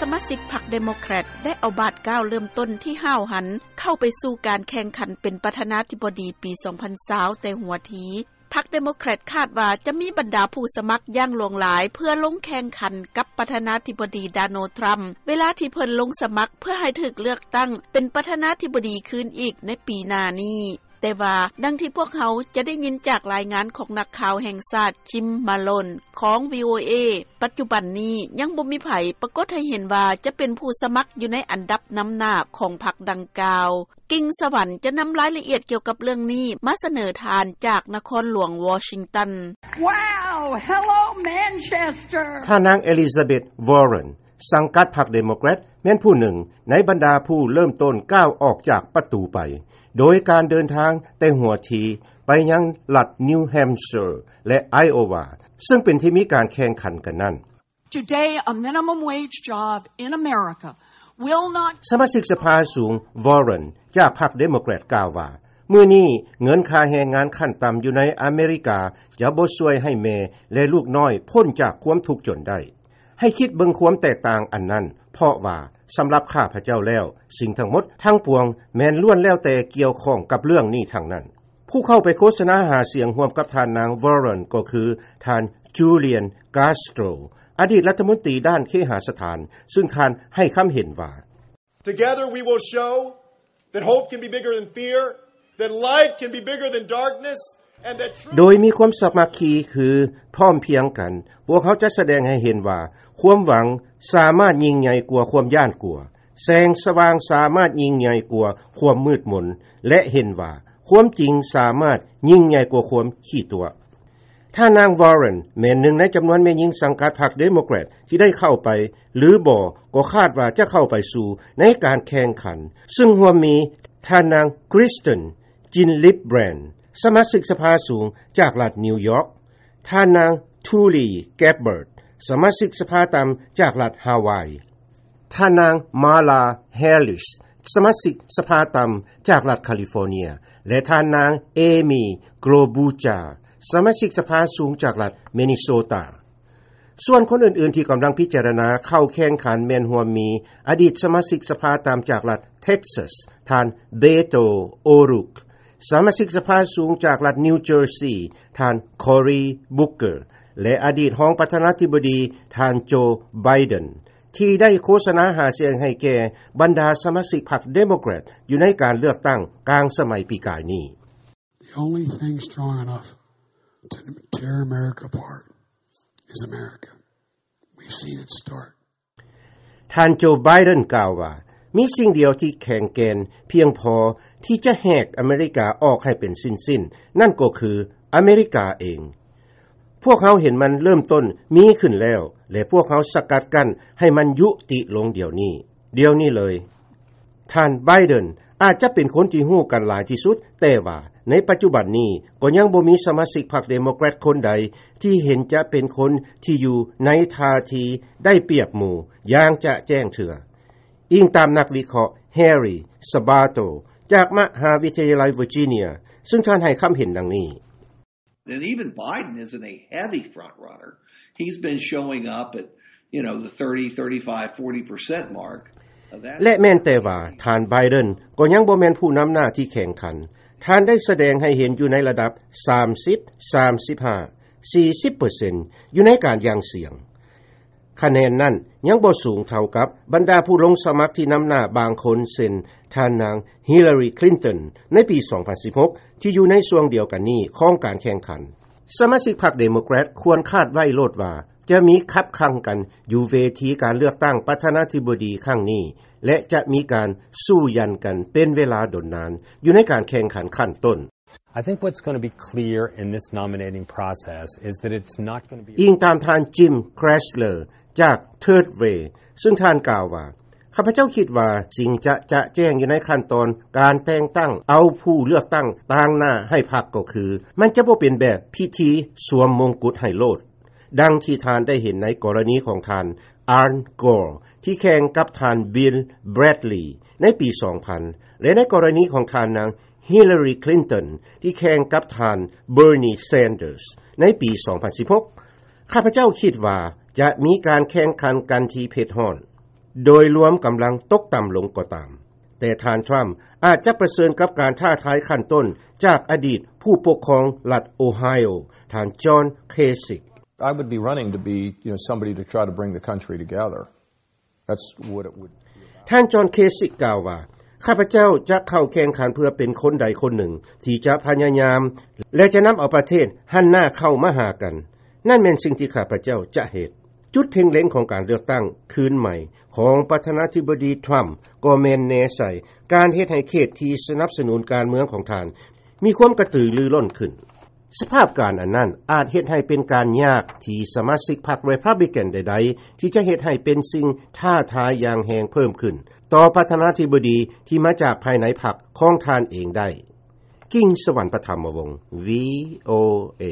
ສະມາຊິກພັກເດໂມແຄຣດ ໄດ້ເອົາບາດກ້າວເລີ່ມຕົ້ນທີ່ຫ້າວຫັນ ເຂົ້າໄປສູ່ການແຂ່ງຂັນເປັນປະທານາທິບໍດີປີສອງພັນຊາວແຕ່ຫົວທີ. ພັກເດໂມແຄຣດຄາດວ່າຈະມີບັນດາຜູ້ສະໝັກຢ່າງຫຼວງຫຼາຍ ເພື່ອລົງແຂ່ງຂັນກັບປະທານາທິບໍດີ ໂດນັລ ທຣຳ ເວລາທີ່ເພິ່ນລົງສະໝັກເພື່ອໃຫ້ຖືກເລືອກຕັ້ງເປັນປະທານາທິບໍດີຄືນອີກໃນປີໜ້ານີ້. ແຕ່ວ່າ ດັ່ງທີ່ພວກເຮົາຈະໄດ້ຍິນຈາກລາຍງານຂອງນັກຂ່າວແຫ່ງຊາດ ຈິມ ມາໂລນ ຂອງ ວີໂອເອ ປັດຈຸບັນນີ້ຍັງບໍ່ມີໃຜປາກົດໃຫ້ເຫັນວ່າຈະເປັນຜູ້ສະໝັກຢູ່ໃນອັນດັບນຳໜ້າຂອງພັກດັ່ງກ່າວ. ກິ່ງສະຫວັນຈະນຳລາຍລະອຽດກ່ຽວກັບເລື່ອງນີ້ມາສະເໜີທ່ານຈາກນະຄອນຫຼວງວໍຊິງຕັນ. Wow! Hello, Manchester! ທ່ານນາງ ເອລິຊາເບັດ ວໍເຣັນ ສັງກັດພັກເດໂມແຄຣດ ແມ່ນຜູ້ໜຶ່ງໃນບັນດາຜູ້ເລີ່ມຕົ້ນກ້າວອອກຈາກປະຕູໄປ ໂດຍການເດີນທາງແຕ່ຫົວທີໄປຍັງລັດນິວແຮມເຊີ ແລະ ໄອໂອວາ ເຊິ່ງເປັນທີ່ມີການແຂ່ງຂັນກັນນັ້ນ. Today, a minimum wage job in America will not ສະມາຊິກສະພາສູງ ວໍເຣັນ ຈາກພັກເດໂມແຄຣດ ກ່າວວ່າ ມື້ນີ້ເງິນຄ່າແຮງງານຂັ້ນຕ່ຳຢູ່ໃນອາເມລິກາຈະບໍ່ຊ່ວຍໃຫ້ແມ່ ແລະ ລູກນ້ອຍພົ້ນຈາກຄວາມທຸກຈົນໄດ້. ໃຫ້ຄິດເບິ່ງຄວາມແຕກຕ່າງອັນນັ້ນ, ເພາະວ່າສຳລັບຂ້າພະເຈົ້າແລ້ວ, ສິ່ງທັງໝົດທັງປວງແມ່ນລ້ວນແລ້ວແຕ່ກ່ຽວຂ້ອງກັບເລື່ອງນີ້ທັງນັ້ນ. ຜູ້ເຂົ້າໄປໂຄສະນາຫາສຽງຮ່ວມກັບທ່ານນາງ ວໍເຣັນ ກໍຄືທ່ານ ຈູລຽນ ກາສໂຕຣ ອະດີດລັດຖະມົນຕີດ້ານເຄຫະສະຖານ, ຊຶ່ງທ່ານໃຫ້ຄຳເຫັນວ່າ Together we will show that hope can be bigger than fear, that light can be bigger than darkness, and that truth ໂດຍມີຄວາມສາມັກຄີຄືພ້ອມພຽງກັນ, ພວກເຮົາຈະສະແດງໃຫ້ເຫັນວ່າຄວາມຫວັງສາມາດຍິ່ງໃຫຍ່ກວ່າຄວາມຢ້ານກົວ, ແສງສະຫວ່າງສາມາດຍິ່ງໃຫຍ່ກວ່າຄວາມມືດມົນ ແລະ ເຫັນວ່າຄວາມຈິງສາມາດຍິ່ງໃຫຍ່ກວ່າຄວາມຂີ້ຕົວະ. ທ່ານນາງ ວໍເຣັນ ແມ່ນໜຶ່ງໃນຈຳນວນແມ່ຍິງສັງກັດພັກເດໂມແຄຣດທີ່ໄດ້ເຂົ້າໄປ ຫຼື ບໍ່ກໍຄາດວ່າຈະເຂົ້າໄປສູ່ໃນການແຂ່ງຂັນ, ຊຶ່ງຮ່ວມມີທ່ານນາງ ຄຣິສເຕັນ ຈິນລິບແບຣນ ສະມາຊິກສະພາສູງຈາກລັດນິວຢອກ, ທ່ານນາງ ທູລີ ແກັບເບີດ ສະມາຊິກສະພາຕ່ຳຈາກລັດຮາວາຍ, ທ່ານນາງ ມາລາ ແຮລິສ ສະມາຊິກສະພາຕ່ຳຈາກລັດຄາລິຟໍເນຍ ແລະ ທ່ານນາງ ເອມີ ໂກລບູຈາ ສະມາຊິກສະພາສູງຈາກລັດເມນິໂຊຕາ. ສ່ວນຄົນອື່ນໆທີ່ກຳລັງພິຈາລະນາເຂົ້າແຂ່ງຂັນແມ່ນຮ່ວມມີ ອະດີດສະມາຊິກສະພາຕ່ຳຈາກລັດເທັກຊັສ ທ່ານ ເບໂຕ ໂອຣູກ, ສະມາຊິກສະພາສູງຈາກລັດນິວເຈີຊີ ທ່ານ ຄໍຣີ ບຸກເກີ ແລະ ອະດີດຮອງປະທານາທິບໍດີ ທ່ານ ໂຈ ໄບເດັນ ທີ່ໄດ້ໂຄສະນາຫາສຽງໃຫ້ແກ່ບັນດາສະມາຊິກພັກເດໂມແຄຣດຢູ່ໃນການເລືອກຕັ້ງກາງສະໄໝປີກາຍນີ້. The only thing strong enough to tear America apart is America. We've seen it start. ທ່ານ ໂຈ ໄບເດັນ ກ່າວວ່າ ມີສິ່ງດຽວທີ່ແຂງແກ່ນພຽງພໍທີ່ຈະແຫກອາເມລິກາອອກໃຫ້ເປັນຊິ້ນໆ, ນັ້ນກໍຄືອາເມລິກາເອງ. ພວກເຮົາເຫັນມັນເລີ່ມຕົ້ນມີຂຶ້ນແລ້ວ ແລະ ພວກເຮົາສະກັດກັ້ນໃຫ້ມັນຍຸຕິລົງດຽວນີ້, ດຽວນີ້ເລີຍ. ທ່ານ ໄບເດັນ ອາດຈະເປັນຄົນທີ່ຮູ້ກັນຫຼາຍທີ່ສຸດ, ແຕ່ວ່າໃນປັດຈຸບັນນີ້ກໍຍັງບໍ່ມີສະມາຊິກພັກເດໂມແຄຣດຄົນໃດທີ່ເຫັນຈະເປັນຄົນທີ່ຢູ່ໃນທ່າທີໄດ້ປຽບໝູ່ຢ່າງຈະແຈ້ງເທື່ອ, ອີງຕາມນັກວິເຄາະ ແຮຣີ ສະບາໂຕ ຈາກມະຫາວິທະຍາໄລເວີຈິເນຍ, ຊຶ່ງທ່ານໃຫ້ຄຳເຫັນດັ່ງນີ້. And even Biden isn't a heavy front runner. He's been showing up at, you know, the thirty, thirty-five, forty percent mark. Now, that's ແລະ ແມ່ນແຕ່ວ່າທ່ານ ໄບເດັນ ກໍຍັງບໍ່ແມ່ນຜູ້ນຳໜ້າທີ່ແຂ່ງຂັນ. ທ່ານໄດ້ສະແດງໃຫ້ເຫັນຢູ່ໃນລະດັບ ສາມສິບ ສາມສິບຫ້າ ສີ່ສິບເປີເຊັນ ຢູ່ໃນການຢ່າງສຽງ. ຄະແນນນັ້ນຍັງບໍ່ສູງເທົ່າກັບບັນດາຜູ້ລົງສະໝັກທີ່ນຳໜ້າບາງຄົນ ເຊັ່ນ ທ່ານນາງ ຮິລລາຣີ ຄລິນຕັນ ໃນປີສອງພັນສິບຫົກ ທີ່ຢູ່ໃນຊ່ວງດຽວກັນນີ້ຂອງການແຂ່ງຂັນ. ສະມາຊິກພັກເດໂມແຄຣດຄວນຄາດໄວ້ໂລດວ່າ ຈະມີຂັບຂັ່ງກັນຢູ່ເວທີການເລືອກຕັ້ງປະທານາທິບໍດີຄັ້ງນີ້ ແລະ ຈະມີການສູ້ຢັນກັນເປັນເວລາດົນນານຢູ່ໃນການແຂ່ງຂັນຂັ້ນຕົ້ນ. I think what's gonna be clear in this nominating process is that it's not gonna be ອີງຕາມທ່ານ ຈິມ ແຄຣສເລີ ຈາກ Third Way ຊຶ່ງທ່ານກ່າວວ່າ ຂ້າພະເຈົ້າຄິດວ່າສິ່ງຈະຈະແຈ້ງຢູ່ໃນຂັ້ນຕອນການແຕ່ງຕັ້ງເອົາຜູ້ເລືອກຕັ້ງຕາງໜ້າໃຫ້ພັກກໍຄື ມັນຈະບໍ່ເປັນແບບພິທີສວມມົງກຸດໃຫ້ໂລດ. ດັ່ງທີ່ທ່ານໄດ້ເຫັນໃນກໍລະນີຂອງທ່ານ ອານ ໂກລ ທີ່ແຂ່ງກັບທ່ານ ບິນ ແບຣດລີ ໃນປີສອງພັນ ແລະ ໃນກໍລະນີຂອງທ່ານນາງ ຮິລລາຣີ ຄລິນຕັນ ທີ່ແຂ່ງກັບທ່ານ ເບີນີ ແຊນເດີສ ໃນປີສອງພັນສິບຫົກ. ຂ້າພະເຈົ້າຄິດວ່າຈະມີການແຂ່ງຂັນກັນທີ່ເຜັດຮ້ອນ. ໂດຍລວມກຳລັງຕົກຕໍ່າລົງກໍຕາມ, ແຕ່ທ່ານທຣຳອາດຈະປະເຊີນກັບການທ້າທາຍຂັ້ນຕົ້ນຈາກອະດີດຜູ້ປົກຄອງລັດໂອໄຮໂອ ທ່ານຈອນ ເຄຊິກ. I would be running to be, you know, somebody to try to bring the country together. That's what it would. ທ່ານຈອນ ເຄຊິກ ກ່າວວ່າ ຂ້າພະເຈົ້າຈະເຂົ້າແຂ່ງຂັນເພື່ອເປັນຄົນໃດຄົນໜຶ່ງທີ່ຈະພະຍາຍາມ ແລະ ຈະນຳເອົາປະເທດຫັນໜ້າເຂົ້າມາຫາກັນ. ນັ້ນແມ່ນສິ່ງທີ່ຂ້າພະເຈົ້າຈະເຮັດ. ຈຸດເພັ່ງເລັງຂອງການເລືອກຕັ້ງຄືນໃໝ່ຂອງປະທານາທິບໍດີທຣຳ ກໍແມ່ນແນໃສ່ການເຮັດໃຫ້ເຂດທີ່ສະໜັບສະໜູນການເມືອງຂອງທ່ານມີຄວາມກະຕືລືລົ້ນຂຶ້ນ. ສະພາບການອັນນັ້ນອາດເຮັດໃຫ້ເປັນການຍາກທີ່ສະມາຊິກພັກ Republican ໃດໆ ທີ່ຈະເຮັດໃຫ້ເປັນສິ່ງທ້າທາຍຢ່າງແຮງເພີ່ມຂຶ້ນຕໍ່ປະທານາທິບໍດີທີ່ມາຈາກພາຍໃນພັກຂອງທ່ານເອງໄດ້. ກິງ ສະຫວັນ ປະຖຳມະວົງ ວີໂອເອ.